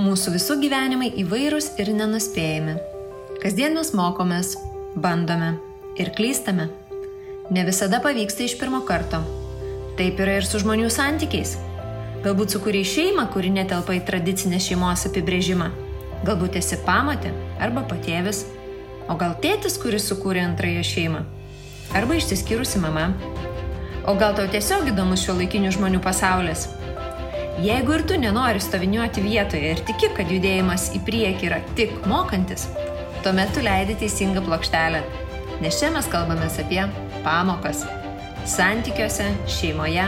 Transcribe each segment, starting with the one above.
Mūsų visų gyvenimai įvairūs ir nenuspėjami. Kasdien mes mokomės, bandome ir klystame. Ne visada pavyksta iš pirmo karto. Taip yra ir su žmonių santykiais. Galbūt sukūrei šeimą, kuri netelpa į tradicinę šeimos apibrėžimą. Galbūt esi pamotė arba patėvis. O gal tėtis, kuris sukūrė antrąją šeimą. Arba išsiskyrusi mama. O gal tau tiesiog įdomus šiuolaikinių žmonių pasaulis. Jeigu ir tu nenori stoviniuoti vietoje ir tiki, kad judėjimas į priekį yra tik mokantis, tuomet tu leidi teisingą plokštelę. Nes čia mes kalbamės apie pamokas. Santykiuose, šeimoje,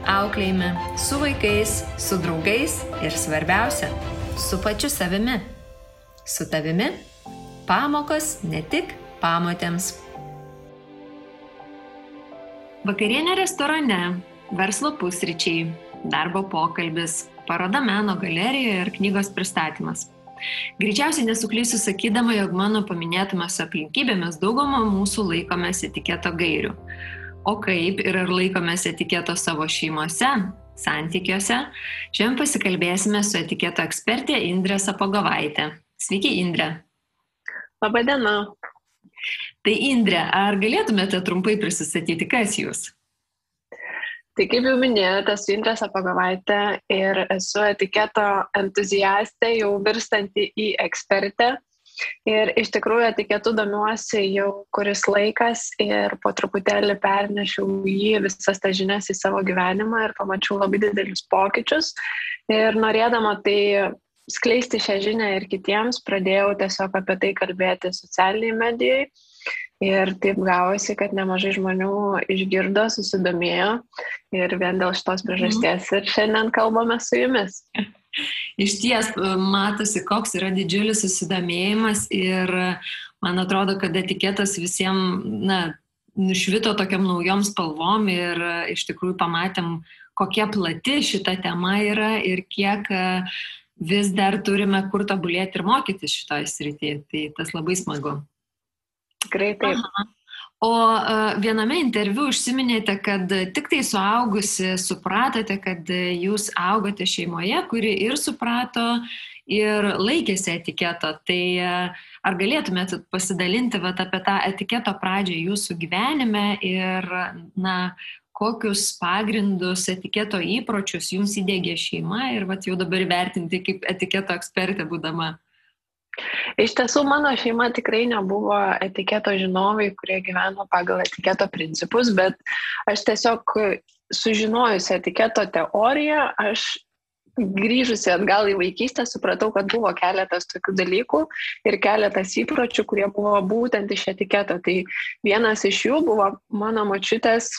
auklėjime, su vaikais, su draugais ir svarbiausia, su pačiu savimi. Su tavimi pamokos ne tik pamotėms. Vakarienė restorane, verslo pusryčiai, darbo pokalbis, paroda meno galerijoje ir knygos pristatymas. Greičiausiai nesuklysiu sakydama, jog mano paminėtumas aplinkybėmis daugumą mūsų laikomės etiketo gairių. O kaip ir ar laikomės etiketo savo šeimose, santykiuose, šiandien pasikalbėsime su etiketo ekspertė Indrė Sapogovaitė. Sveiki, Indrė. Labą dieną. Tai Indrė, ar galėtumėte trumpai prisistatyti, kas jūs? Tai kaip jau minėjote, esu Indrė Sapogovaitė ir esu etiketo entuziastė, jau virstanti į ekspertę. Ir iš tikrųjų etiketu domiuosi jau kuris laikas ir po truputėlį pernešiau visas tas žinias į savo gyvenimą ir pamačiau labai didelius pokyčius. Ir norėdama tai skleisti šią žinią ir kitiems, pradėjau tiesiog apie tai kalbėti socialiniai medijai. Ir taip gavosi, kad nemažai žmonių išgirdo, susidomėjo ir vien dėl šitos priežasties ir šiandien kalbame su jumis. Iš ties matosi, koks yra didžiulis susidomėjimas ir man atrodo, kad etiketas visiems nušvito tokiam naujom spalvom ir iš tikrųjų pamatėm, kokia plati šita tema yra ir kiek vis dar turime kur tobulėti ir mokytis šitoj srityje. Tai tas labai smagu. Tikrai taip. Aha. O viename interviu užsiminėte, kad tik tai suaugusi supratote, kad jūs augote šeimoje, kuri ir suprato ir laikėsi etiketo. Tai ar galėtumėte pasidalinti apie tą etiketo pradžią jūsų gyvenime ir kokius pagrindus, etiketo įpročius jums įdiegė šeima ir jau dabar vertinti kaip etiketo ekspertė būdama? Iš tiesų, mano šeima tikrai nebuvo etiketo žinovai, kurie gyveno pagal etiketo principus, bet aš tiesiog sužinojusi etiketo teoriją, aš grįžusi atgal į vaikystę, supratau, kad buvo keletas tokių dalykų ir keletas įpročių, kurie buvo būtent iš etiketo. Tai vienas iš jų buvo mano močiutės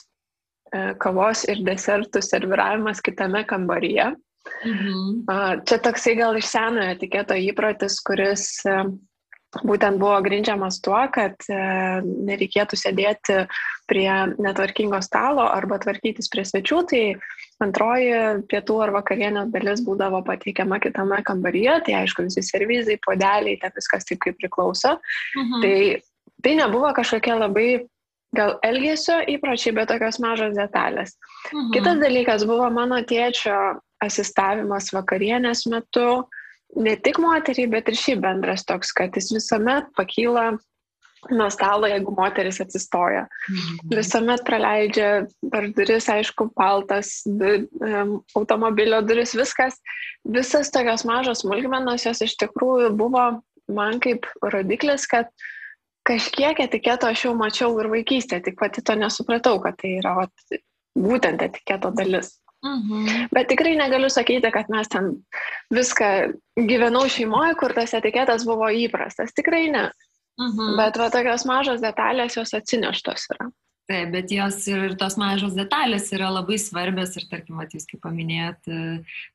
kavos ir desertų serviravimas kitame kambaryje. Čia toksai gal iš senojo etiketo įprotis, kuris būtent buvo grindžiamas tuo, kad nereikėtų sėdėti prie netvarkingo stalo arba tvarkytis prie svečių, tai antroji pietų ar vakarienės dalis būdavo pateikiama kitame kambaryje, tai aišku visi servizai, puodeliai, tai viskas taip kaip priklauso. Tai nebuvo kažkokie labai gal elgesio įpročiai, bet tokios mažos detalės. Kitas dalykas buvo mano tėčio asistavimas vakarienės metu, ne tik moteriai, bet ir šiaip bendras toks, kad jis visuomet pakyla nuo stalo, jeigu moteris atsistoja. Visuomet praleidžia per duris, aišku, paltas, automobilio duris, viskas. Visas tokios mažos smulkmenos, jos iš tikrųjų buvo man kaip rodiklis, kad kažkiek etiketo aš jau mačiau ir vaikystėje, tik pati to nesupratau, kad tai yra būtent etiketo dalis. Bet tikrai negaliu sakyti, kad mes ten viską gyvenau šeimoje, kur tas etiketas buvo įprastas. Tikrai ne. Bet tokios mažos detalės jos atsineštos yra. Taip, bet jos ir tos mažos detalės yra labai svarbios ir tarkim, jūs kaip paminėjot,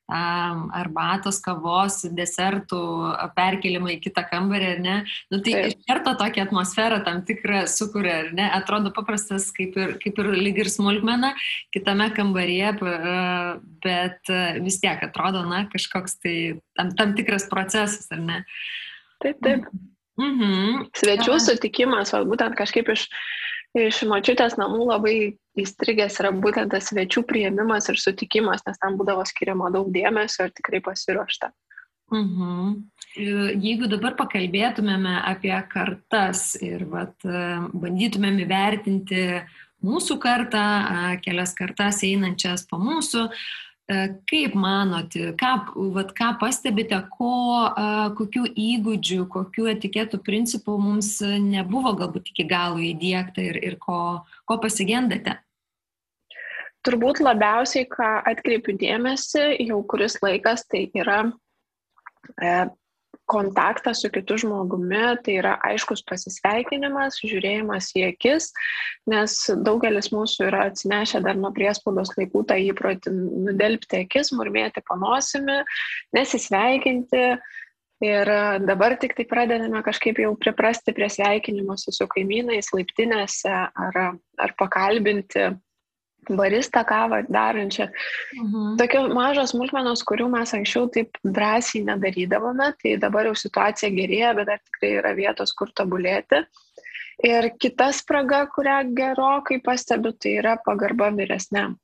arbatos, kavos, desertų perkelimą į kitą kambarį, ar ne? Tai iš karto tokią atmosferą tam tikrą sukuria, ar ne? Atrodo paprastas kaip ir lyg ir smulkmena kitame kambaryje, bet vis tiek atrodo, kažkoks tai tam tikras procesas, ar ne? Taip. Svečių sutikimas, būtent kažkaip iš močiutės namų labai įstrigęs yra būtent tas svečių priėmimas ir sutikimas, nes tam būdavo skiriama daug dėmesio ir tikrai pasiruošta. Jeigu dabar pakalbėtumėme apie kartas ir bandytumėm įvertinti mūsų kartą, kelias kartas einančias po mūsų, kaip manote, ką pastebite, kokių įgūdžių, kokių etiketų principų mums nebuvo galbūt iki galo įdiegta ir ko pasigendate? Turbūt labiausiai, ką atkreipiu dėmesį jau kuris laikas, tai yra kontaktas su kitu žmogumi, tai yra aiškus pasisveikinimas, žiūrėjimas į akis, nes daugelis mūsų yra atsinešę dar nuo priespaudos laikų tą įprotį nudelbti akis, murmėti panosimi, nesisveikinti. Ir dabar tik tai pradedame kažkaip jau priprasti prie sveikinimuose su kaimynais, laiptinėse ar pakalbinti baristą kavą darančią. Tokios mažos smulkmenos, kurių mes anksčiau taip drąsiai nedarydavome, tai dabar jau situacija gerėja, bet dar tikrai yra vietos, kur tobulėti. Ir kita spraga, kurią gerokai pastebiu, tai yra pagarba vyresniam.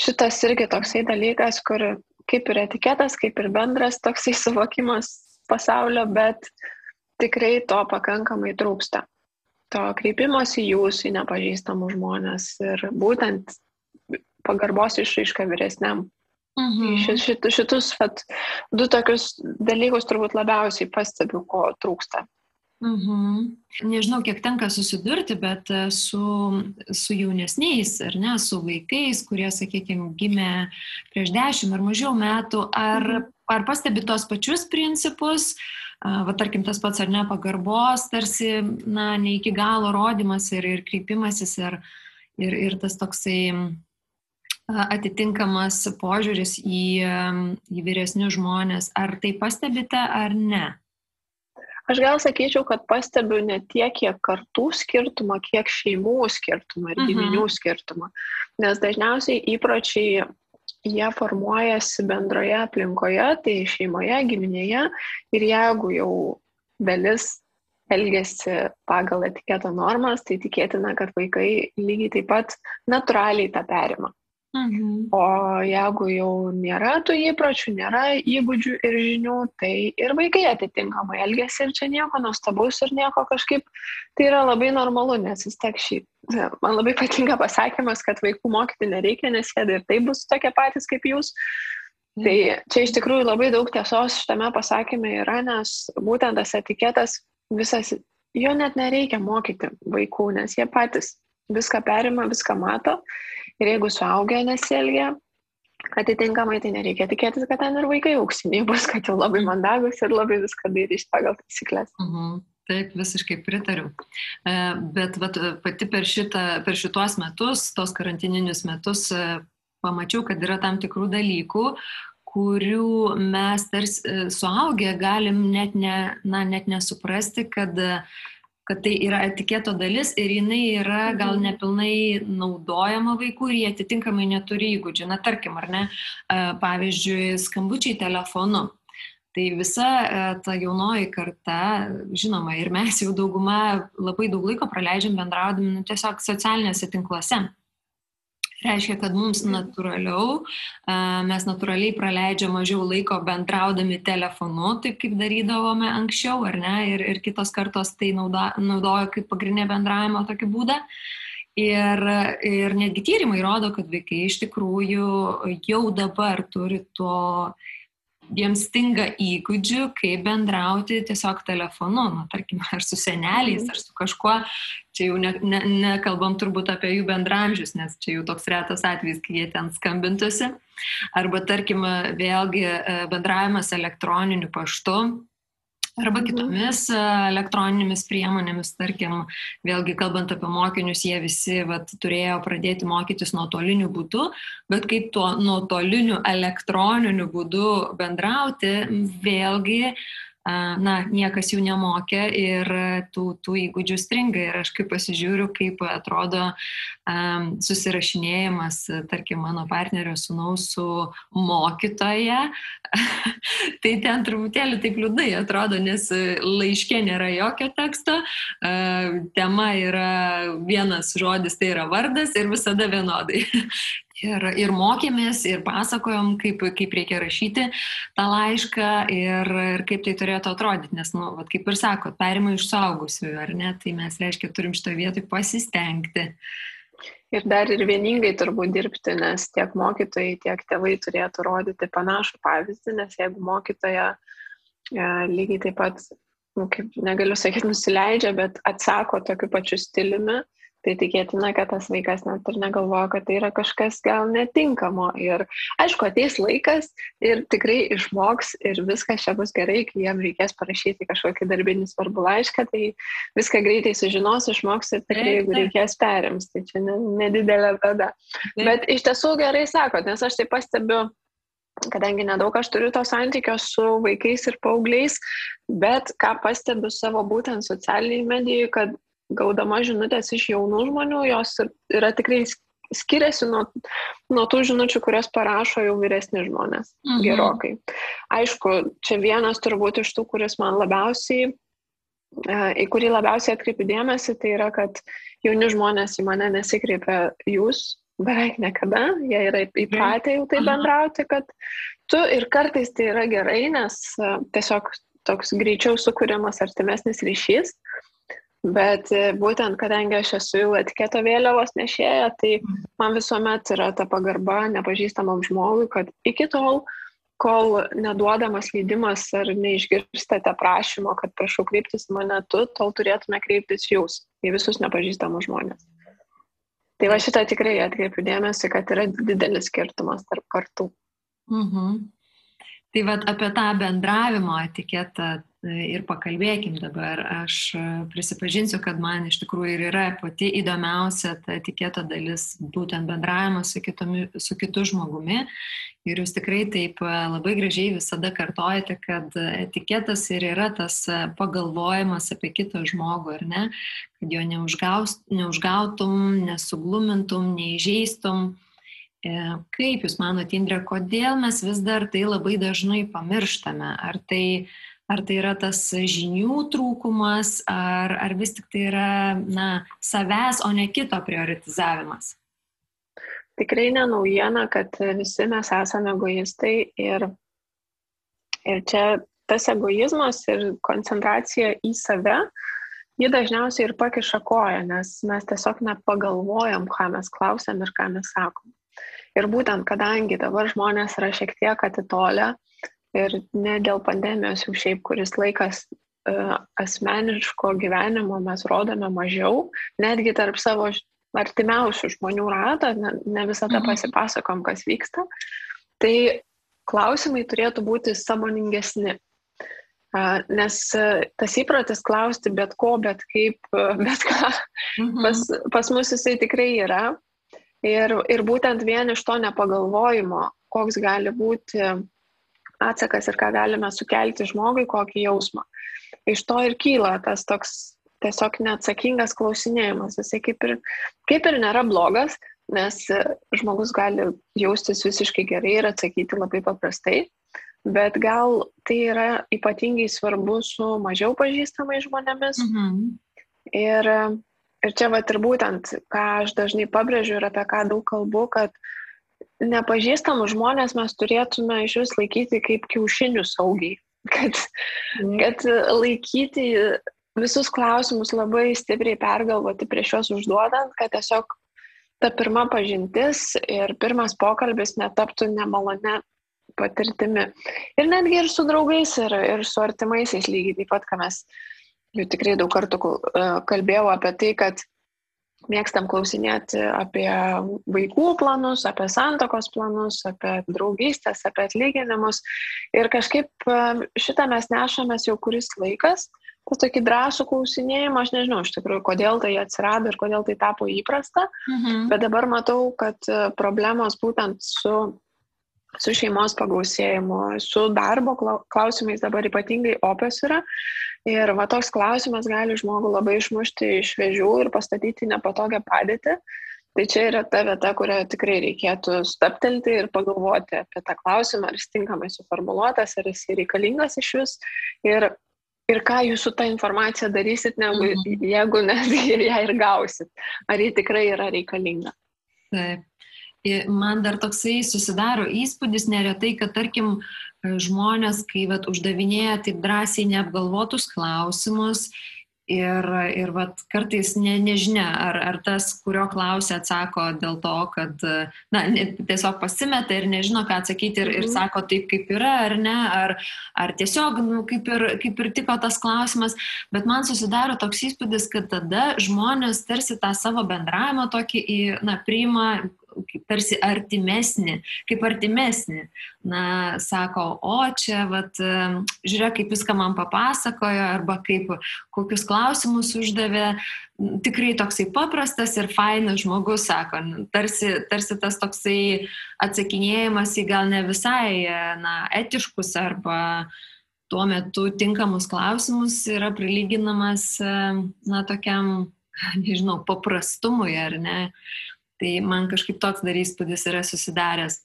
Šitas irgi toksai dalykas, kur kaip ir etiketas, kaip ir bendras toksai suvokimas pasaulio, bet tikrai to pakankamai trūksta. To kreipimosi jūsų į nepažįstamų žmonės ir būtent pagarbos išraiška vyresniam. Šitus du tokius dalykus turbūt labiausiai pastebiu, ko trūksta. Nežinau, kiek tenka susidurti, bet su jaunesniais, ar ne, su vaikais, kurie, sakykime, gimė prieš 10 ar mažiau metų, ar pastebi tos pačius principus, tarkim, tas pats ar ne pagarbos, tarsi, ne iki galo rodymas ir kreipimasis ir tas toksai atitinkamas požiūris į vyresnius žmonės. Ar tai pastebite ar ne? Aš gal sakyčiau, kad pastebiu ne tiek, kiek kartų skirtumą, kiek šeimų skirtumą ir giminių skirtumą. Nes dažniausiai įpročiai jie formuojasi bendroje aplinkoje, tai šeimoje, giminėje, ir jeigu jau dalis elgiasi pagal etiketo normas, tai tikėtina, kad vaikai lygiai taip pat natūraliai tą perima. O jeigu jau nėra tų įpročių, nėra įgūdžių ir žinių, tai ir vaikai atitinkamai elgiasi ir čia nieko nuostabaus ir nieko kažkaip, tai yra labai normalu, nes vis tiek man labai patinka pasakymas, kad vaikų mokyti nereikia, nes jie ir tai bus tokie patys kaip jūs. Tai čia iš tikrųjų labai daug tiesos šitame pasakyme yra, nes būtent tas etiketas visas, jo net nereikia mokyti vaikų, nes jie patys viską perima, viską mato. Ir jeigu suaugę nesielgia atitinkamai, tai nereikia tikėtis, kad ten ir vaikai auksiniai bus, kad jau labai mandagus ir labai viską darys pagal taisyklės. Taip, visiškai pritariu. Bet pati per šituos metus, tos karantininius metus, pamačiau, kad yra tam tikrų dalykų, kurių mes tarsi suaugę galim net nesuprasti, kad tai yra etiketo dalis ir jinai yra gal nepilnai naudojama vaikų ir jie atitinkamai neturi įgūdžių. Tarkim, ar ne, pavyzdžiui, skambučiai telefonu. Tai visa ta jaunoji karta, žinoma, ir mes jau dauguma labai daug laiko praleidžiam bendraudami tiesiog socialiniuose tinkluose. Reiškia, kad mums mes natūraliai praleidžiam mažiau laiko bendraudami telefonu, taip kaip darydavome anksčiau, ar ne, ir kitos kartos tai naudojo kaip pagrindinę bendravimo tokį būdą. Ir netgi tyrimai rodo, kad vaikai iš tikrųjų jau dabar turi jiems stinga įgūdžių, kaip bendrauti tiesiog telefonu, tarkim, ar su seneliais, ar su kažkuo. Čia jau nekalbam turbūt apie jų bendramžius, nes čia jau toks retas atvejis, kai jie ten skambintusi. Arba, tarkim, vėlgi bendravimas elektroniniu paštu, arba kitomis elektroninėmis priemonėmis, tarkim, vėlgi kalbant apie mokinius, jie visi turėjo pradėti mokytis nuotoliniu būdu, bet kaip tuo nuotoliniu elektroniniu būdu bendrauti, vėlgi, niekas jų nemokė ir tų įgūdžių stringa. Ir aš kaip pasižiūriu, kaip atrodo susirašinėjimas, tarkim, mano partnerio sūnaus su mokytoja, tai ten truputėlį taip liūdnai atrodo, nes laiške nėra jokio teksto, tema yra vienas žodis, tai yra vardas ir visada vienodai. Ir mokėmės, ir pasakojom, kaip reikia rašyti tą laišką ir kaip tai turėtų atrodyti, nes, nu, vat, kaip ir sakot, perima iš suaugusiųjų, ar ne, tai mes, reiškia, turim šitą vietą pasistengti. Ir dar ir vieningai turbūt dirbti, nes tiek mokytojai, tiek tėvai turėtų rodyti panašų pavyzdį, nes jeigu mokytoja lygiai taip pat, nu, kaip negaliu sakyti, nusileidžia, bet atsako tokiu pačiu stiliumi, tai tikėtina, kad tas vaikas net ir negalvoja, kad tai yra kažkas gal netinkamo. Ir aišku, ateis laikas ir tikrai išmoks ir viskas čia bus gerai, kai jam reikės parašyti kažkokį darbinį svarbų laišką, tai viską greitai sužinos, išmoks ir tikrai, jeigu reikės perims, tai čia nedidelė bėda. Bet iš tiesų gerai sakot, nes aš tai pastebiu, kadangi nedaug aš turiu to santykio su vaikais ir paaugliais, bet ką pastebiu savo būtent socialiniai medijai, kad gaudama žinutės iš jaunų žmonių, jos yra tikrai skiriasi nuo tų žinučių, kurias parašo jau vyresni žmonės gerokai. Aišku, čia vienas turbūt iš tų, kuris man labiausiai, į kurį labiausiai atkreipiu dėmesį, tai yra, kad jauni žmonės į mane nesikreipia jūs beveik niekada, jie yra įpratę jau tai bendrauti, kad tu ir kartais tai yra gerai, nes tiesiog toks greičiau sukuriamas artimesnis ryšys. Bet būtent, kadangi aš esu jau etiketo vėliavos nešėja, tai man visuomet yra ta pagarba nepažįstamam žmogui, kad iki tol, kol neduodamas leidimas ar neišgirstate prašymo, kad prašau kreiptis į mane tu, tol turėtume kreiptis jūs, į visus nepažįstamus žmonės. Tai va šitą tikrai atkreipiu dėmesį, kad yra didelis skirtumas tarp kartų. Tai vat apie tą bendravimo etiketą ir pakalbėkim dabar. Aš prisipažinsiu, kad man iš tikrųjų ir yra pati įdomiausia ta etiketo dalis, būtent bendravimas su kitu žmogumi. Ir jūs tikrai taip labai gražiai visada kartojate, kad etiketas ir yra tas pagalvojimas apie kitą žmogų, ar ne? Kad jo neužgautum, nesuglumintum, neįžeistum. Kaip jūs manote, Indre, kodėl mes vis dar tai labai dažnai pamirštame? Ar tai yra tas žinių trūkumas, ar vis tik tai yra savęs, o ne kito prioritizavimas? Tikrai ne naujiena, kad visi mes esame egoistai ir čia tas egoizmas ir koncentracija į save, ji dažniausiai ir pakiša koją, nes mes tiesiog nepagalvojam, ką mes klausiam ir ką mes sakom. Ir būtent, kadangi dabar žmonės yra šiek tiek atitolę ir ne dėl pandemijos jau šiaip kuris laikas asmeniško gyvenimo mes rodome mažiau, netgi tarp savo artimiausių žmonių ratą, ne visada pasipasakom, kas vyksta, tai klausimai turėtų būti sąmoningesni. Nes tas įprotis klausti bet ko, bet kaip, bet ką, pas mus jisai tikrai yra. Ir būtent vien iš to nepagalvojimo, koks gali būti atsakas ir ką galime sukelti žmogui, kokį jausmą. Iš to ir kyla tas toks tiesiog neatsakingas klausinėjimas. Jisai kaip ir nėra blogas, nes žmogus gali jaustis visiškai gerai ir atsakyti labai paprastai, bet gal tai yra ypatingai svarbu su mažiau pažįstamais žmonėmis. Ir čia vat ir būtent, ką aš dažnai pabrėžiu ir apie ką daug kalbu, kad nepažįstamus žmonės mes turėtume iš vis laikyti kaip kiaušinių saugiai. Kad laikyti visus klausimus labai stipriai pergalvoti prieš juos užduodant, kad tiesiog ta pirma pažintis ir pirmas pokalbis netaptų nemalone patirtimi. Ir netgi ir su draugais, ir su artimaisiais lygiai taip pat, ką mes jau tikrai daug kartų kalbėjau apie tai, kad mėgstam klausinėti apie vaikų planus, apie santuokos planus, apie draugystės, apie atlyginimus. Ir kažkaip šitą mes nešamės jau kuris laikas. Tas tokį drąsų klausinėjimą, aš nežinau iš tikrųjų, kodėl tai atsirado ir kodėl tai tapo įprasta. Bet dabar matau, kad problemos būtent su šeimos pagausėjimu, su darbo klausimais dabar ypatingai opios yra. Ir va toks klausimas gali žmogų labai išmušti iš vėžių ir pastatyti nepatogią padėtį. Tai čia yra ta vieta, kurioje tikrai reikėtų stabtelti ir pagalvoti apie tą klausimą, ar jis tinkamai suformuluotas, ar jis reikalingas iš vis. Ir ką jūs su tą informacija darysit, jeigu netgi ir ją ir gausit. Ar ji tikrai yra reikalinga. Taip. Man dar toksai susidaro įspūdis neretai, kad tarkim žmonės, kai uždavinėja taip drąsiai neapgalvotus klausimus ir kartais nežinia, ar tas, kurio klausia, atsako dėl to, kad tiesiog pasimeta ir nežino, ką atsakyti ir sako taip, kaip yra, ar ne, ar tiesiog kaip ir tiko tas klausimas. Bet man susidaro toks įspūdis, kad tada žmonės tarsi tą savo bendravimą tokį priima tarsi artimesnį. Sako, o čia, žiūrėk, kaip viską man papasakojo, arba kokius klausimus uždavė. Tikrai toksai paprastas ir fainas žmogus, sako, tarsi tas toksai atsakinėjimas į gal ne visai etiškus arba tuo metu tinkamus klausimus yra prilyginamas tokiam, nežinau, paprastumui, ar ne? Tai man kažkaip toks dar įspūdis yra susidaręs.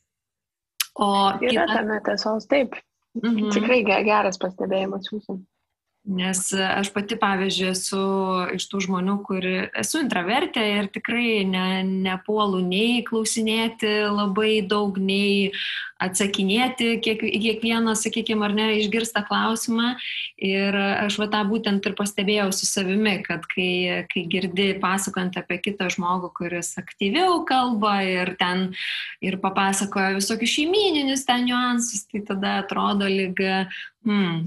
Yra tame tiesos, taip. Tikrai geras pastebėjimas jūsų. Nes aš pati, pavyzdžiui, esu iš tų žmonių, kur esu intravertė ir tikrai nepuolu nei klausinėti labai daug, nei atsakinėti kiekvieną, sakykime, ar ne, išgirstą klausimą. Ir aš tą būtent ir pastebėjau su savimi, kad kai girdi pasakojant apie kitą žmogų, kuris aktyviau kalba ir papasakoja visokius šeimyninius ten niuansus, tai tada atrodo lyg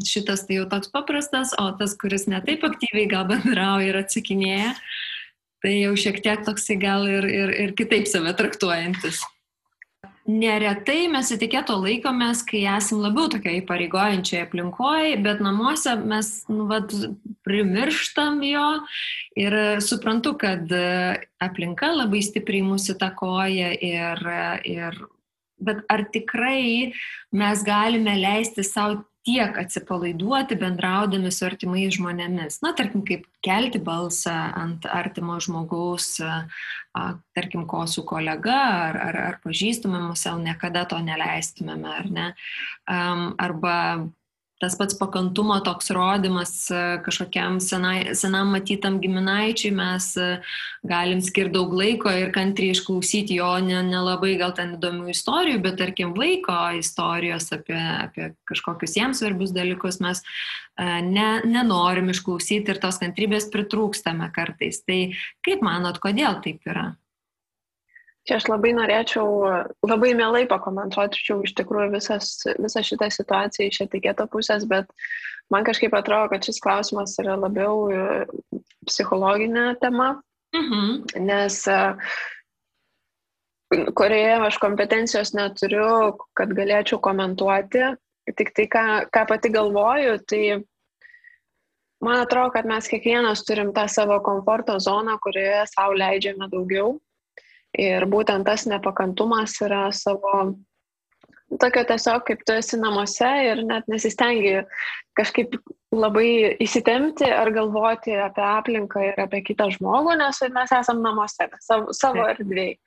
šitas tai jau toks paprastas, o tas, kuris ne taip aktyviai gal bendrauja ir atsakinėja, tai jau šiek tiek toksai gal ir kitaip save traktuojantis. Neretai mes etiketo laikomės, kai esam labiau tokioje įpareigojančioje aplinkoje, bet namuose mes primirštam jo ir suprantu, kad aplinka labai stipriai mūsų įtakoja bet ar tikrai mes galime leisti savo tiek atsipalaiduoti bendraudami su artimais žmonėmis. Tarkim, kaip kelti balsą ant artimo žmogaus, tarkim, ko su kolega ar pažįstamam, savo niekada to neleistumėme, ar ne? Arba tas pats pakantumo toks rodymas kažkokiam senam matytam giminaičiui, mes galim skirti daug laiko ir kantriai išklausyti jo nelabai gal ten įdomių istorijų, bet tarkim vaiko istorijos apie kažkokius jiems svarbius dalykus mes nenorim išklausyti ir tos kantrybės pritrūkstame kartais. Tai kaip manot, kodėl taip yra? Čia aš labai norėčiau, labai mielai pakomentuočiau iš tikrųjų visą šitą situaciją iš etiketo pusės, bet man kažkaip atrodo, kad šis klausimas yra labiau psichologinė tema, nes kurioje aš kompetencijos neturiu, kad galėčiau komentuoti, tik tai, ką pati galvoju, tai man atrodo, kad mes kiekvienas turim tą savo komforto zoną, kurioje savo leidžiame daugiau. Ir būtent tas nepakantumas yra savo, tokio tiesiog, kaip tu esi namuose ir net nesistengi kažkaip labai įsitempti ar galvoti apie aplinką ir apie kitą žmogų, nes mes esam namuose, savo erdvėj.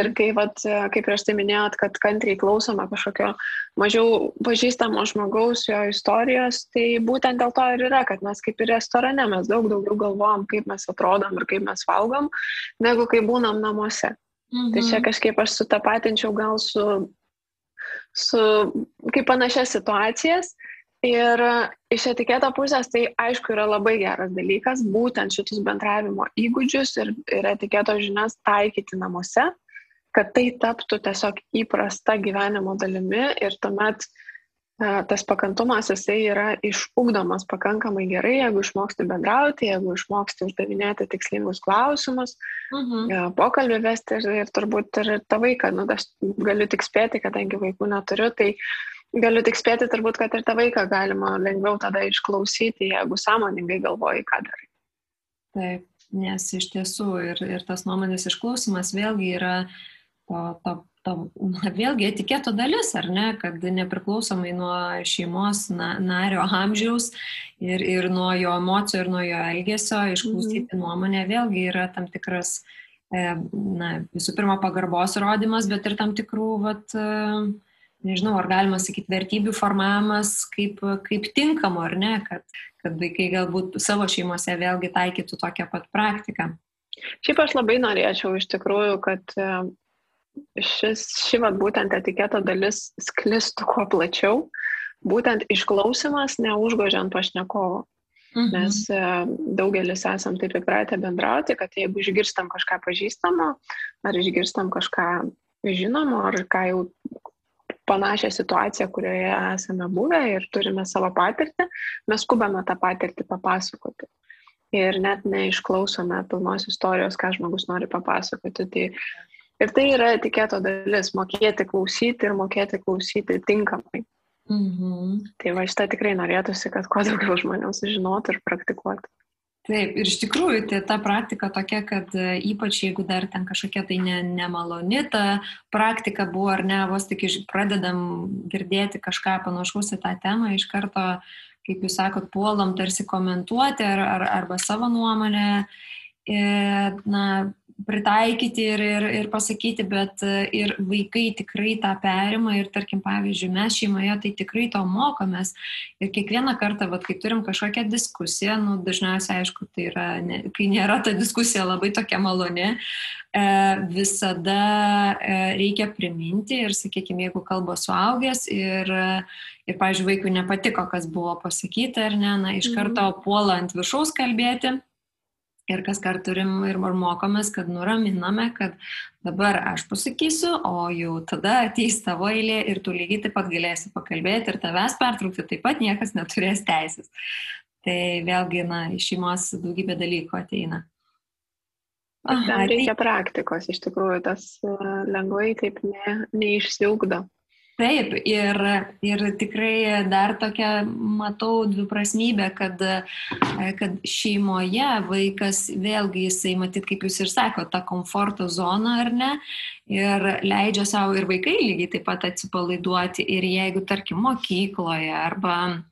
Ir kaip prieš tai minėjot, kad kantriai klausome kažkokio mažiau pažįstamo žmogaus, jo istorijos, tai būtent dėl to ir yra, kad mes kaip ir restorane, mes daug daugiau galvojam, kaip mes atrodom ir kaip mes valgom, negu kai būnam namuose. Tai čia kažkaip aš sutapatinčiau gal su kaip panašias situacijas. Ir iš etiketo pusės tai aišku yra labai geras dalykas, būtent šitus bendravimo įgūdžius ir etiketo žinias taikyti namuose, kad tai taptų tiesiog įprasta gyvenimo dalimi ir tuomet tas pakantumas jisai yra išugdomas pakankamai gerai, jeigu išmoksti bendrauti, jeigu išmoksti uždavinėti tikslingus klausimus, pokalbį vesti ir turbūt ir tą vaiką, aš galiu tik spėti, kadangi vaikų neturiu, tai galiu tik spėti turbūt, kad ir tą vaiką galima lengviau tada išklausyti, jeigu sąmoningai galvoji, ką darai. Taip, nes iš tiesų ir tas nuomonės išklausimas vėlgi yra vėlgi etiketo dalis, ar ne, kad nepriklausomai nuo šeimos nario amžiaus ir nuo jo emocijų ir nuo jo elgesio išklausyti nuomonę vėlgi yra tam tikras, visų pirma, pagarbos rodymas, bet ir tam tikrų, nežinau, ar galima sakyti, vertybių formavimas kaip tinkamo, ar ne, kad vaikai galbūt savo šeimose vėlgi taikytų tokią pat praktiką. Šiaip aš labai norėčiau iš tikrųjų, kad ši vat būtent etiketo dalis sklistų kuo plačiau, būtent išklausimas neužgožiant pašnekovo. Nes daugelis esam taip įpratę bendrauti, kad jeigu išgirstam kažką pažįstamo, ar išgirstam kažką žinomo, ar ką jau panašią situaciją, kurioje esame buvę ir turime savo patirtį, mes skubame tą patirtį papasakoti. Ir net neišklausome pilnos istorijos, ką žmogus nori papasakoti. Ir tai yra etiketo dalis - mokėti klausyti ir mokėti klausyti tinkamai. Tai va šitą tikrai norėtųsi, kad kuo daugiau žmonių sužinotų ir praktikuotų. Taip, ir iš tikrųjų tai ta praktika tokia, kad ypač jeigu dar ten kažkokia tai nemaloni ta praktika buvo, ar ne, vos tik pradedam girdėti kažką panašaus į tą temą, iš karto, kaip jūs sakot, puolam tarsi komentuoti arba savo nuomonę, pritaikyti ir pasakyti, bet ir vaikai tikrai tą perima ir, tarkim, pavyzdžiui, mes šeimoje tai tikrai to mokomės ir kiekvieną kartą, kai turim kažkokią diskusiją, dažniausiai, aišku, tai yra, kai nėra ta diskusija labai tokia maloni, visada reikia priminti ir, sakykime, jeigu kalba suaugęs ir pavyzdžiui, vaikui nepatiko, kas buvo pasakyta, ar ne, iš karto puola ant viršaus kalbėti. Ir kas kart turim ir mokomės, kad nuraminame, kad dabar aš pasakysiu, o jau tada ateis tavo eilė ir tu lygiai taip pat galėsi pakalbėti ir tavęs pertraukti taip pat niekas neturės teisės. Tai vėlgi, iš šeimos daugybė dalykų ateina. Tam reikia praktikos, iš tikrųjų, tas lengvai taip neišsiugdo. Taip, ir tikrai dar tokia matau dviprasmybę, kad šeimoje vaikas vėlgi jisai, matyt, kaip jūs ir sakote, tą komforto zoną, ar ne, ir leidžia savo ir vaikai lygiai taip pat atsipalaiduoti. Ir jeigu, tarkim, mokykloje arba,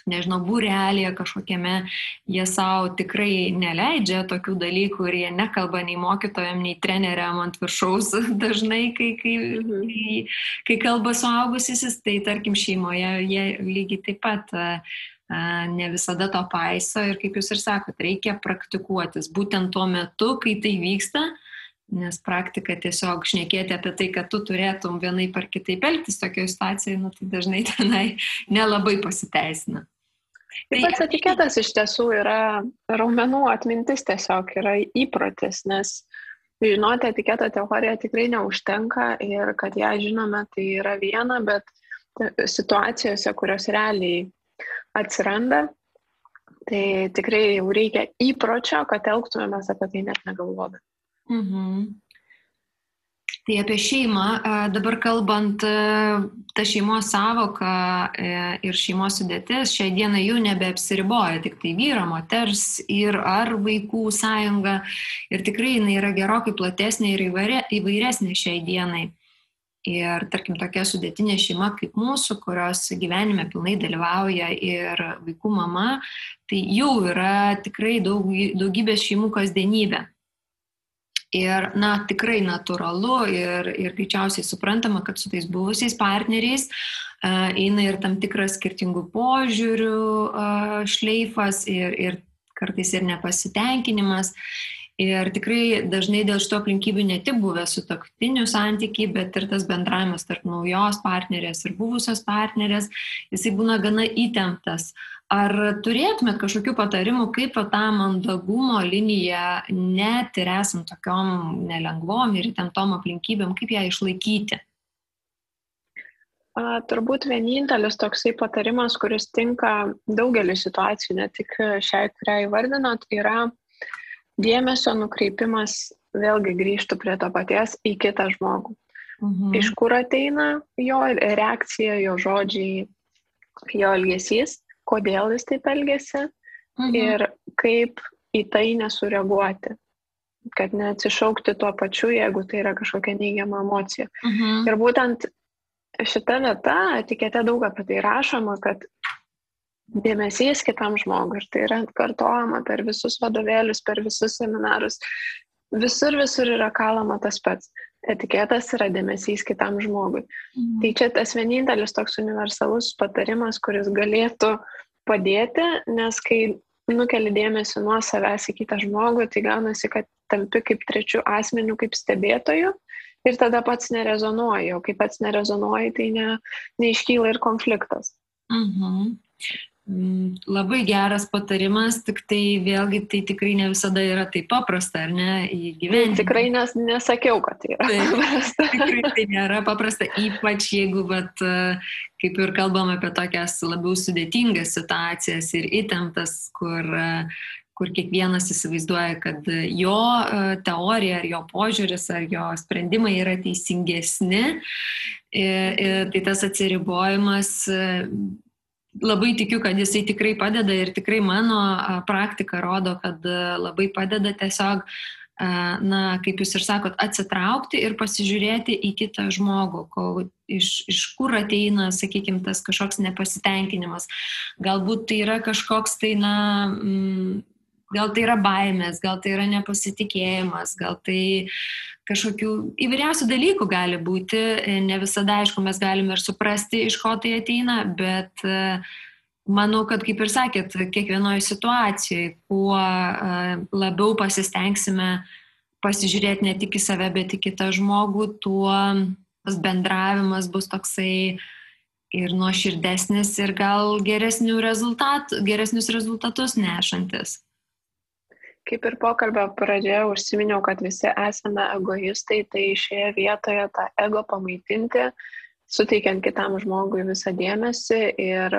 nežinau, būrelėje kažkokiame, jie savo tikrai neleidžia tokių dalykų ir jie nekalba nei mokytojam, nei treneriam ant viršaus dažnai, kai kalba suaugusysis, tai tarkim šeimoje jie lygiai taip pat ne visada to paiso ir kaip jūs ir sakot, reikia praktikuotis būtent tuo metu, kai tai vyksta, nes praktika tiesiog šnekėti apie tai, kad tu turėtum vienaip ar kitaip elgtis tokioje situacijoje, tai dažnai tenai nelabai pasiteisina. Taip pats etiketas iš tiesų yra raumenų atmintis, tiesiog yra įprotis, nes žinoti etiketo teoriją tikrai neužtenka ir kad ją žinome, tai yra viena, bet situacijose, kurios realiai atsiranda, tai tikrai jau reikia įpročio, kad elgtumėmės apie tai net negalvodami. Tai apie šeimą, dabar kalbant, ta šeimos sąvoka ir šeimos sudėtis šiai dienai jau nebeapsiriboja, tik tai vyro, moters ir ar vaikų sąjunga. Ir tikrai jinai yra gerokai platesnė ir įvairesnė šiai dienai. Ir tarkim tokia sudėtinė šeima kaip mūsų, kurios gyvenime pilnai dalyvauja ir vaikų mama, tai jau yra tikrai daugybės šeimų kasdienybė. Ir, tikrai natūralu ir greičiausiai suprantama, kad su tais buvusiais partneriais eina ir tam tikras skirtingų požiūrių šleifas ir kartais ir nepasitenkinimas. Ir tikrai dažnai dėl šito aplinkybių ne tik buvę sutuoktinių santykiai, bet ir tas bendravimas tarp naujos partnerės ir buvusios partnerės, jisai būna gana įtemptas. Ar turėtumėt kažkokių patarimų, kaip tą mandagumo liniją net ir esant tokiom nelengvom ir įtemptom aplinkybėm, kaip ją išlaikyti? Turbūt vienintelis toksai patarimas, kuris tinka daugelį situacijų, ne tik šiai, kurią įvardinot, yra dėmesio nukreipimas, vėlgi grįžtų prie to paties, į kitą žmogų. Iš kur ateina jo reakcija, jo žodžiai, jo elgesys, kodėl jis taip elgėsi ir kaip į tai nesureaguoti, kad neatsišaukti tuo pačiu, jeigu tai yra kažkokia neigiama emocija. Ir būtent šita vieta, etikete daug apie tai rašoma, kad dėmesys kitam žmogui, ir tai yra atkartojama per visus vadovėlius, per visus seminarus, visur yra kalama tas pats. Etiketas yra dėmesys kitam žmogui. Tai čia tas vienintelis toks universalus patarimas, kuris galėtų padėti, nes kai nukeli dėmesį nuo savęs į kitą žmogų, tai gaunasi, kad tampi kaip trečiu asmeniu, kaip stebėtoju ir tada pats nerezonuoji, o kai pats nerezonuoji, tai neiškyla ir konfliktas. Labai geras patarimas, tik tai vėlgi tai tikrai ne visada yra taip paprasta, ar ne, įgyvendinti. Tikrai nesakiau, kad tai yra paprasta. Tikrai tai nėra paprasta, ypač jeigu, kaip ir kalbam apie tokias labiau sudėtingas situacijas ir įtemptas, kur kiekvienas įsivaizduoja, kad jo teorija ar jo požiūris ar jo sprendimai yra teisingesni. Tai tas atsiribojimas, labai tikiu, kad jisai tikrai padeda ir tikrai mano praktika rodo, kad labai padeda tiesiog, kaip jūs ir sakot, atsitraukti ir pasižiūrėti į kitą žmogų, iš kur ateina, sakykime, tas kažkoks nepasitenkinimas. Galbūt tai yra kažkoks tai, gal tai yra baimės, gal tai yra nepasitikėjimas, gal tai kažkokių įvairiausių dalykų gali būti. Ne visada, aišku, mes galime ir suprasti, iš ko tai ateina, bet manau, kad, kaip ir sakėt, kiekvienoje situacijoje, kuo labiau pasistengsime pasižiūrėti ne tik į save, bet į kitą žmogų, tuo tas bendravimas bus toksai ir nuoširdesnis ir gal geresnius rezultatus nešantis. Kaip ir pokalbio pradžioje užsiminiau, kad visi esame egoistai, tai šioje vietoje tą ego pamaitinti, suteikiant kitam žmogui visą dėmesį ir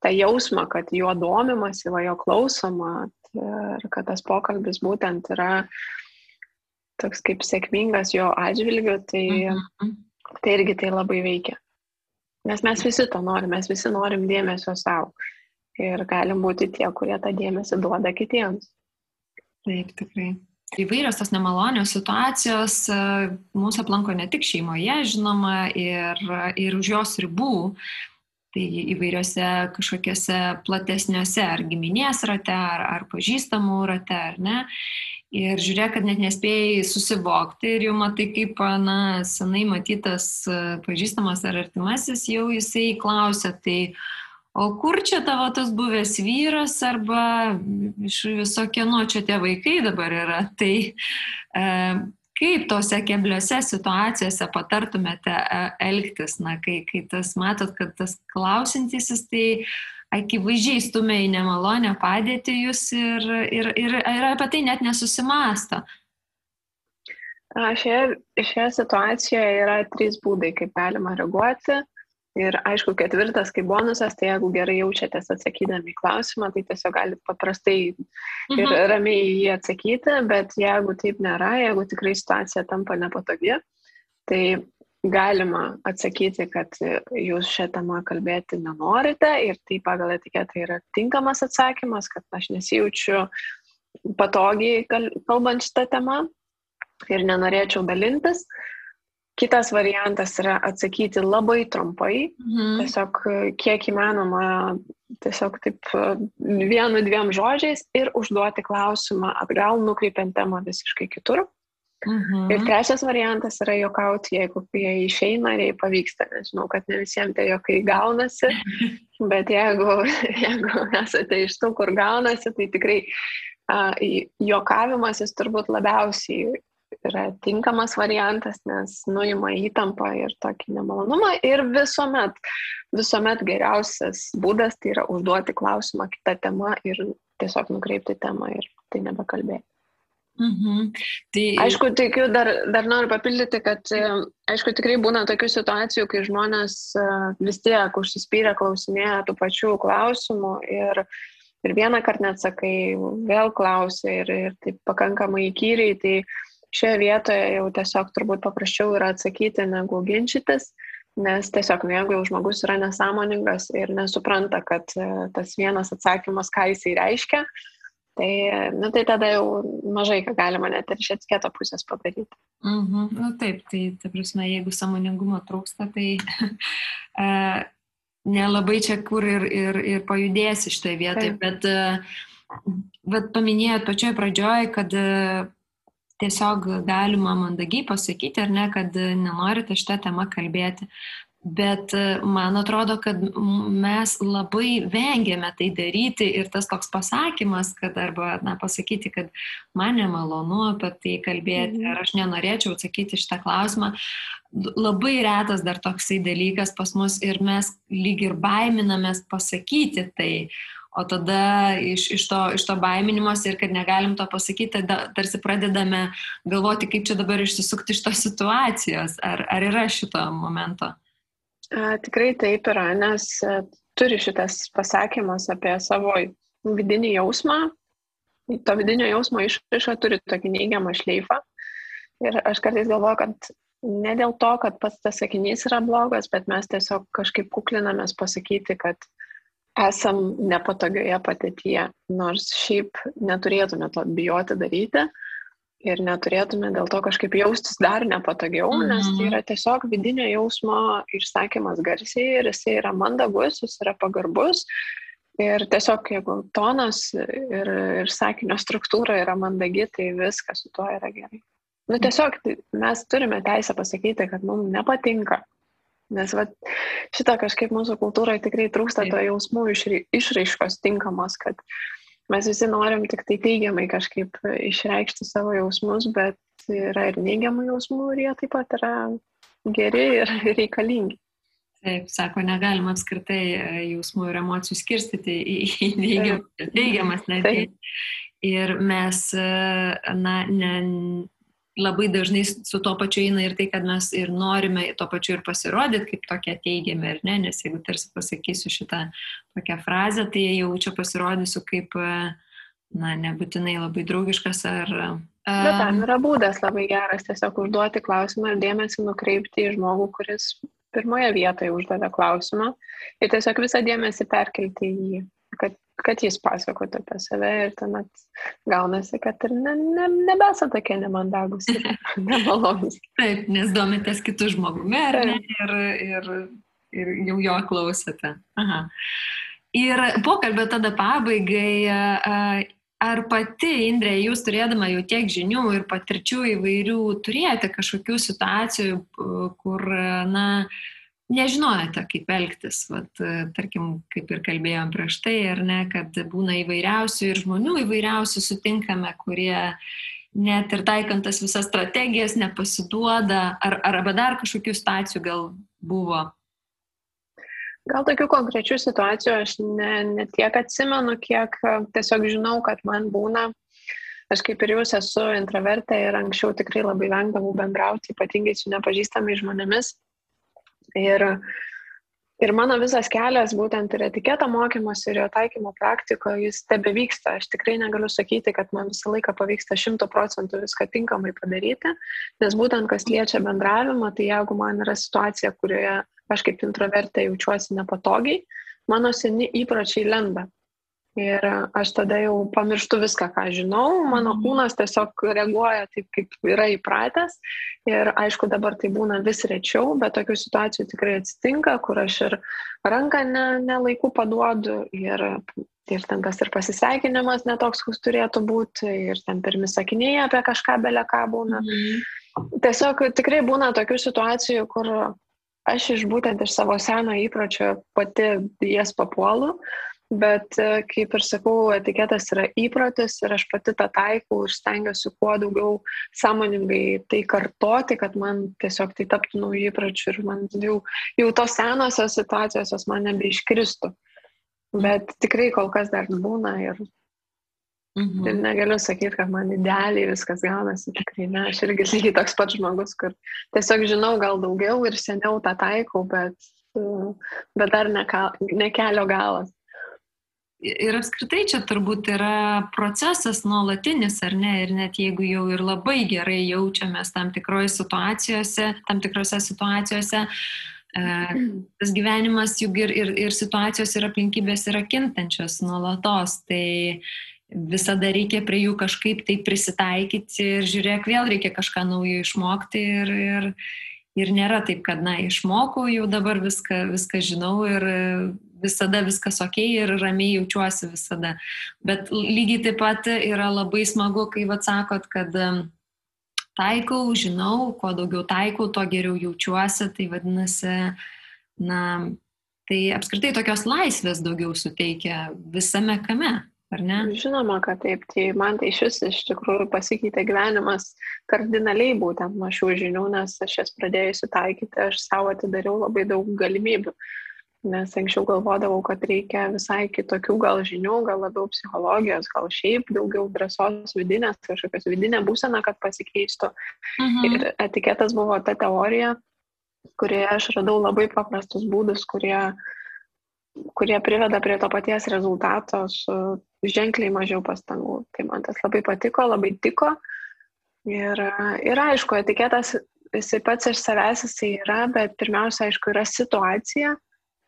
tą jausmą, kad jo domimasi, jo klausoma ir kad tas pokalbis būtent yra toks kaip sėkmingas jo atžvilgiu, tai irgi tai labai veikia. Nes mes visi to norim, mes visi norim dėmesio savo ir galim būti tie, kurie tą dėmesį duoda kitiems. Taip, tikrai. Įvairios tos nemalonios situacijos mūsų aplanko ne tik šeimoje, žinoma, ir už jos ribų. Tai įvairiose kažkokiose platesniuose ar giminės rate, ar pažįstamų rate, ar ne. Ir žiūrėk, kad net nespėjai susivokti ir jau matai, kaip senai matytas pažįstamas ar artimasis, jau jisai klausia, tai o kur čia tavo tas buvęs vyras arba iš viso kieno čia tie vaikai dabar yra. Tai kaip tose kebliose situacijose patartumėte elgtis, kai tas matot, kad tas klausintysis, tai akivaizdžiai stumia į nemalonę padėtį jūs ir apie tai net nesusimąsto. Šioje situacijoje yra 3 būdai, kaip galima reaguoti. Ir aišku, 4, kaip bonusas, tai jeigu gerai jaučiatės atsakydami į klausimą, tai tiesiog galite paprastai ir ramiai jį atsakyti, bet jeigu taip nėra, jeigu tikrai situacija tampa nepatogi, tai galima atsakyti, kad jūs šią temą kalbėti nenorite ir tai pagal etiketą yra tinkamas atsakymas, kad aš nesijaučiu patogiai kalbant šitą temą ir nenorėčiau dalintis. Kitas variantas yra atsakyti labai trumpai, tiesiog kiek įmanoma, tiesiog taip 1-2 žodžiais ir užduoti klausimą atgal, nukreipiant temą visiškai kitur. Ir trečias variantas yra juokauti, jeigu jie išeina ir jei pavyksta. Nežinau, kad ne visiems tai juokai gaunasi, bet jeigu esate iš tų, kur gaunasi, tai tikrai juokavimas jis turbūt labiausiai yra tinkamas variantas, nes nuima įtampą ir tokį nemalonumą. Ir visuomet geriausias būdas tai yra užduoti klausimą kitą temą ir tiesiog nukreipti temą ir tai nebekalbėti. Aišku, tikiu, dar noriu papildyti, kad aišku, tikrai būna tokių situacijų, kai žmonės vis tiek užsispyrę klausinėja tų pačių klausimų ir vieną kartą neatsakai, vėl klausia ir taip pakankamai įkyriai, tai šioje vietoje jau tiesiog turbūt paprasčiau yra atsakyti negu ginčytis, nes tiesiog jeigu jau žmogus yra nesąmoningas ir nesupranta, kad tas vienas atsakymas, ką jisai reiškia, tai tada jau mažai ką galima net ir iš etiketo pusės padaryti. Taip, tai ta prasme, jeigu sąmoningumo trūksta, tai nelabai čia kur ir pajudėsi šitoje vietoje, bet paminėjot pačioj pradžioj, kad tiesiog galima mandagiai pasakyti, ar ne, kad nenorite šitą temą kalbėti. Bet man atrodo, kad mes labai vengiame tai daryti ir tas toks pasakymas, kad arba pasakyti, kad man nemalonu apie tai kalbėti, ar aš nenorėčiau atsakyti šitą klausimą, labai retas dar toksai dalykas pas mus ir mes lyg ir baiminamės pasakyti tai. O tada iš to baiminimos ir kad negalim to pasakyti, tarsi pradedame galvoti, kaip čia dabar išsisukti iš tos situacijos. Ar yra šito momento? Tikrai taip yra, nes turi šitas pasakymas apie savo vidinį jausmą. To vidinio jausmo išraiška turi tokį neigiamą šleifą. Ir aš kartais galvoju, kad ne dėl to, kad pats tas sakinys yra blogas, bet mes tiesiog kažkaip kuklinamės pasakyti, kad esam nepatogioje padėtyje, nors šiaip neturėtume to bijoti daryti. Ir neturėtume dėl to kažkaip jaustis dar nepatogiau, nes tai yra tiesiog vidinio jausmo išsakymas garsiai ir jisai yra mandagus, jis yra pagarbus. Ir tiesiog jeigu tonas ir sakinio struktūra yra mandagi, tai viskas su tuo yra gerai. Tiesiog mes turime teisę pasakyti, kad mums nepatinka. Nes šitą kažkaip mūsų kultūroje tikrai trūksta to jausmų išraiškos tinkamos, kad mes visi norim tik tai teigiamai kažkaip išreikšti savo jausmus, bet yra ir neigiamų jausmų ir jie taip pat yra geri ir reikalingi. Taip, sako, negalima apskritai jausmų ir emocijų skirstyti į neigiamas netgi. Ir mes labai dažnai su to pačiu eina ir tai, kad mes ir norime to pačiu ir pasirodyti kaip tokie teigiami, ar ne? Nes jeigu tarsi pasakysiu šitą tokią frazę, tai jau čia pasirodysiu kaip, nebūtinai labai draugiškas ar... Bet tam yra būdas labai geras tiesiog užduoti klausimą ir dėmesį nukreipti į žmogų, kuris pirmoje vietoje uždavė klausimą ir tiesiog visą dėmesį perkelti į jį, kad jis pasakotų apie save ir tuomet gaunasi, kad ir nebesa tokie nemandagus ir nemalonus. Taip, nes domitės kitų žmogumi, ar ne? Ir jau jo klausėte. Aha. Ir pokalbio tada pabaigai, ar pati, Indrė, jūs turėdama jau tiek žinių ir patirčių įvairių, turėjote kažkokių situacijų, kur, nežinojate, kaip elgtis, tarkim, kaip ir kalbėjom prieš tai, ar ne, kad būna įvairiausių ir žmonių įvairiausių sutinkame, kurie net ir taikant tas visas strategijas nepasiduoda, arba dar kažkokių situacijų gal buvo? Gal tokių konkrečių situacijų aš ne tiek atsimenu, kiek tiesiog žinau, kad man būna. Aš kaip ir jūs esu intravertė ir anksčiau tikrai labai vengdavau bendrauti, ypatingai su nepažįstamais žmonėmis. Ir mano visas kelias, būtent ir etiketo mokymas ir jo taikymo praktiko, jis tebevyksta. Aš tikrai negaliu sakyti, kad man visą laiką pavyksta 100% viską tinkamai padaryti, nes būtent kas liečia bendravimą, tai jeigu man yra situacija, kurioje aš kaip introvertė jaučiuosi nepatogiai, mano seni įpročiai lenda. Ir aš tada jau pamirštu viską, ką žinau, mano kūnas tiesiog reaguoja taip, kaip yra įpratęs. Ir aišku, dabar tai būna vis rečiau, bet tokių situacijų tikrai atsitinka, kur aš ir ranką nelaiku paduodu ir ten tas ir pasisveikinimas netoks, koks turėtų būti, ir ten pirmi sakiniai apie kažką beleką būna. Tiesiog tikrai būna tokių situacijų, kur aš būtent iš savo seno įpročio pati jas papuolu. Bet, kaip ir sakau, etiketas yra įprotis ir aš pati tą taikau ir stengiuosi kuo daugiau sąmoningai tai kartoti, kad man tiesiog tai taptų naujų įpročių ir man jau tos senosios situacijos man nebeiškristų. Bet tikrai kol kas dar būna ir negaliu sakyti, kad man idealiai viskas gaunasi, tikrai ne. Aš irgi lygiai toks pats žmogus, kur tiesiog žinau gal daugiau ir seniau tą taikau, bet dar ne kelio galas. Ir apskritai čia turbūt yra procesas nuolatinis, ar ne? Ir net jeigu jau ir labai gerai jaučiamės tam tikrose situacijose, tas gyvenimas juk ir situacijos ir aplinkybės yra kintančios nuolatos. Tai visada reikia prie jų kažkaip tai prisitaikyti ir žiūrėk, vėl reikia kažką naujo išmokti ir nėra taip, kad, išmokau jau dabar viską žinau ir visada viskas okei ir ramiai jaučiuosi visada. Bet lygiai taip pat yra labai smagu, kai sakot, kad taikau, žinau, kuo daugiau taikau, tuo geriau jaučiuosi, tai vadinasi, na, tai apskritai tokios laisvės daugiau suteikia visame kame, ar ne? Žinoma, kad taip. Tai man tai iš tikrųjų pasikeitė gyvenimas kardinaliai būtent nuo šių žinių, nes aš jas pradėjusi taikyti, aš savo atidariau labai daug galimybių. Nes anksčiau galvodavau, kad reikia visai kitokių gal žinių, gal labiau psichologijos, gal šiaip daugiau drąsos vidinės, kažkokios vidinė būsena, kad pasikeistų. Ir etiketas buvo ta teorija, kurioje aš radau labai paprastus būdus, kurie priveda prie to paties rezultato su ženkliai mažiau pastangų. Tai man tas labai patiko, labai tiko. Ir aišku, etiketas jisai pats iš savęs jisai yra, bet pirmiausia, aišku, yra situacija.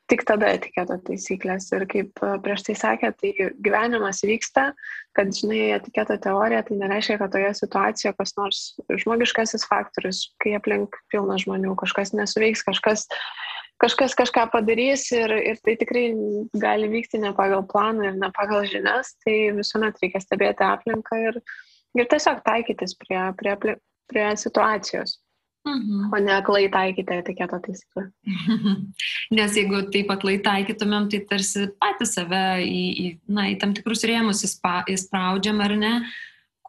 Tik tada etiketo taisyklės. Ir kaip prieš tai sakė, tai gyvenimas vyksta, kad, žinai, etiketo teorija, tai nereiškia, kad toje situacijoje kas nors žmogiškasis faktorius, kai aplink pilna žmonių, kažkas nesuveiks, kažkas kažką padarys ir tai tikrai gali vykti ne pagal planą ir ne pagal žinias, tai visuomet reikia stebėti aplinką ir tiesiog taikytis prie situacijos. O ne aklai taikyti etiketo taisyklę. Nes jeigu taip aklai taikytumėm, tai tarsi patys save į tam tikrus rėmus įspraudžiam, ar ne?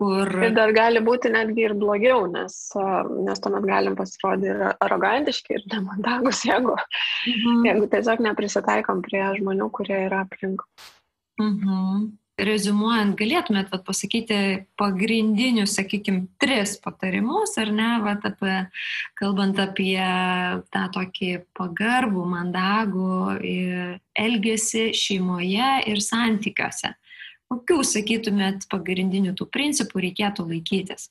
Ir dar gali būti netgi ir blogiau, nes tuomet galim pasirodyti ir arogantiški, ir nemandagus, jeigu tiesiog neprisitaikom prie žmonių, kurie yra aplink. Reziumuojant, galėtumėt pasakyti pagrindinius, sakykime, 3 patarimus, ar ne, kalbant apie tą tokį pagarbų, mandagų elgesį šeimoje ir santykiuose. Kokių, sakytumėt, pagrindinių tų principų reikėtų laikytis?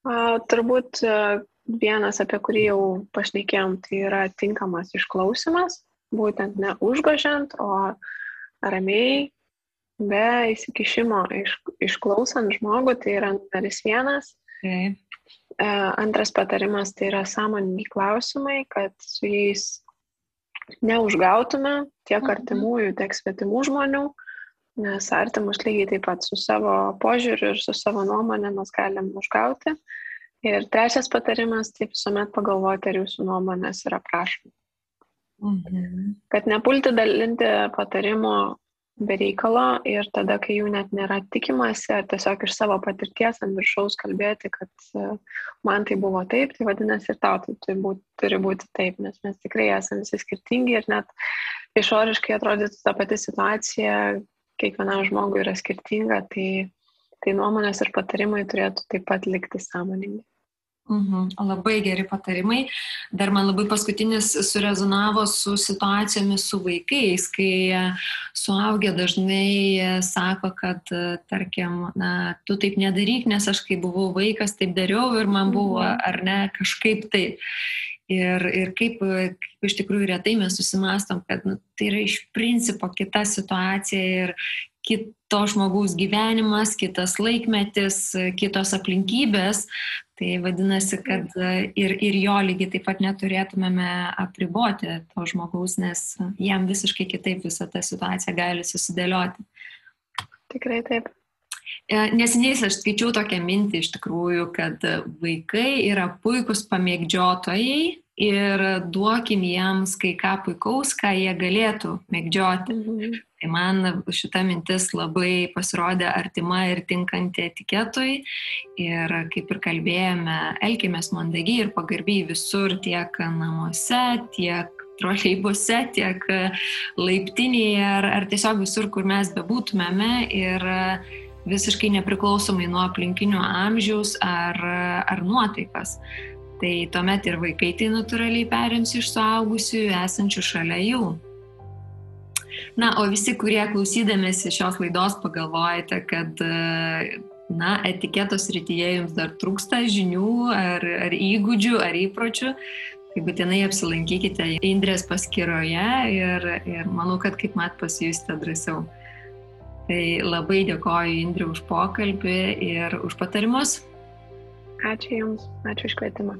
Turbūt vienas, apie kurį jau pašnekėjom, tai yra tinkamas išklausimas, būtent ne užgožiant, o ramiai, be įsikišimo išklausant žmogų, tai yra numeris 1. Antras patarimas tai yra sąmoningi klausimai, kad su jais neužgautume tiek artimųjų, tiek svetimų žmonių, nes artimus lygiai taip pat su savo požiūriu ir su savo nuomonė mes galim užgauti. Ir 3 patarimas, tai visuomet pagalvoti, ar jūsų nuomonės yra prašoma. Kad nepulti dalinti patarimų be reikalo ir tada, kai jų net nėra tikimasi, ar tiesiog iš savo patirties ant viršaus kalbėti, kad man tai buvo taip, tai vadinasi ir tau tai turi būti taip, nes mes tikrai esame visi skirtingi ir net išoriškai atrodytų ta pati situacija, kiekvienam žmogui yra skirtinga, tai nuomonės ir patarimai turėtų taip pat likti sąmoningi. Labai geri patarimai. Dar man labai paskutinis surezonavo su situacijomis su vaikais, kai suaugę dažnai sako, kad, tarkim, tu taip nedaryk, nes aš kai buvau vaikas, taip dariau ir man buvo, ar ne, kažkaip taip. Ir kaip iš tikrųjų retai mes susimąstom, kad tai yra iš principo kita situacija ir kito žmogaus gyvenimas, kitas laikmetis, kitos aplinkybės. Tai vadinasi, kad ir jo lygiai taip pat neturėtumėme apriboti to žmogaus, nes jam visiškai kitaip visą tą situaciją gali susidėlioti. Tikrai taip. Neseniai aš skaičiau tokią mintį iš tikrųjų, kad vaikai yra puikūs pamėgdžiotojai ir duokim jiems kai ką puikaus, ką jie galėtų mėgdžioti. Tai man šita mintis labai pasirodė artima ir tinkanti etiketui ir kaip ir kalbėjome, elkimės mandagiai ir pagarbiai visur, tiek namuose, tiek troleibuse, tiek laiptinėje ar tiesiog visur, kur mes bebūtumėme ir visiškai nepriklausomai nuo aplinkinių amžiaus ar nuotaikas. Tai tuomet ir vaikai tai natūraliai perims iš suaugusių esančių šalia jų. O visi, kurie klausydamėsi šios laidos pagalvojate, kad etiketo srityje jums dar trūksta žinių ar įgūdžių ar įpročių, tai būtinai apsilankykite Indrės paskyroje ir manau, kad kaip mat pasijusite drąsiau. Tai labai dėkoju Indrė už pokalbį ir už patarimus. Ačiū Jums, ačiū už kvietimą.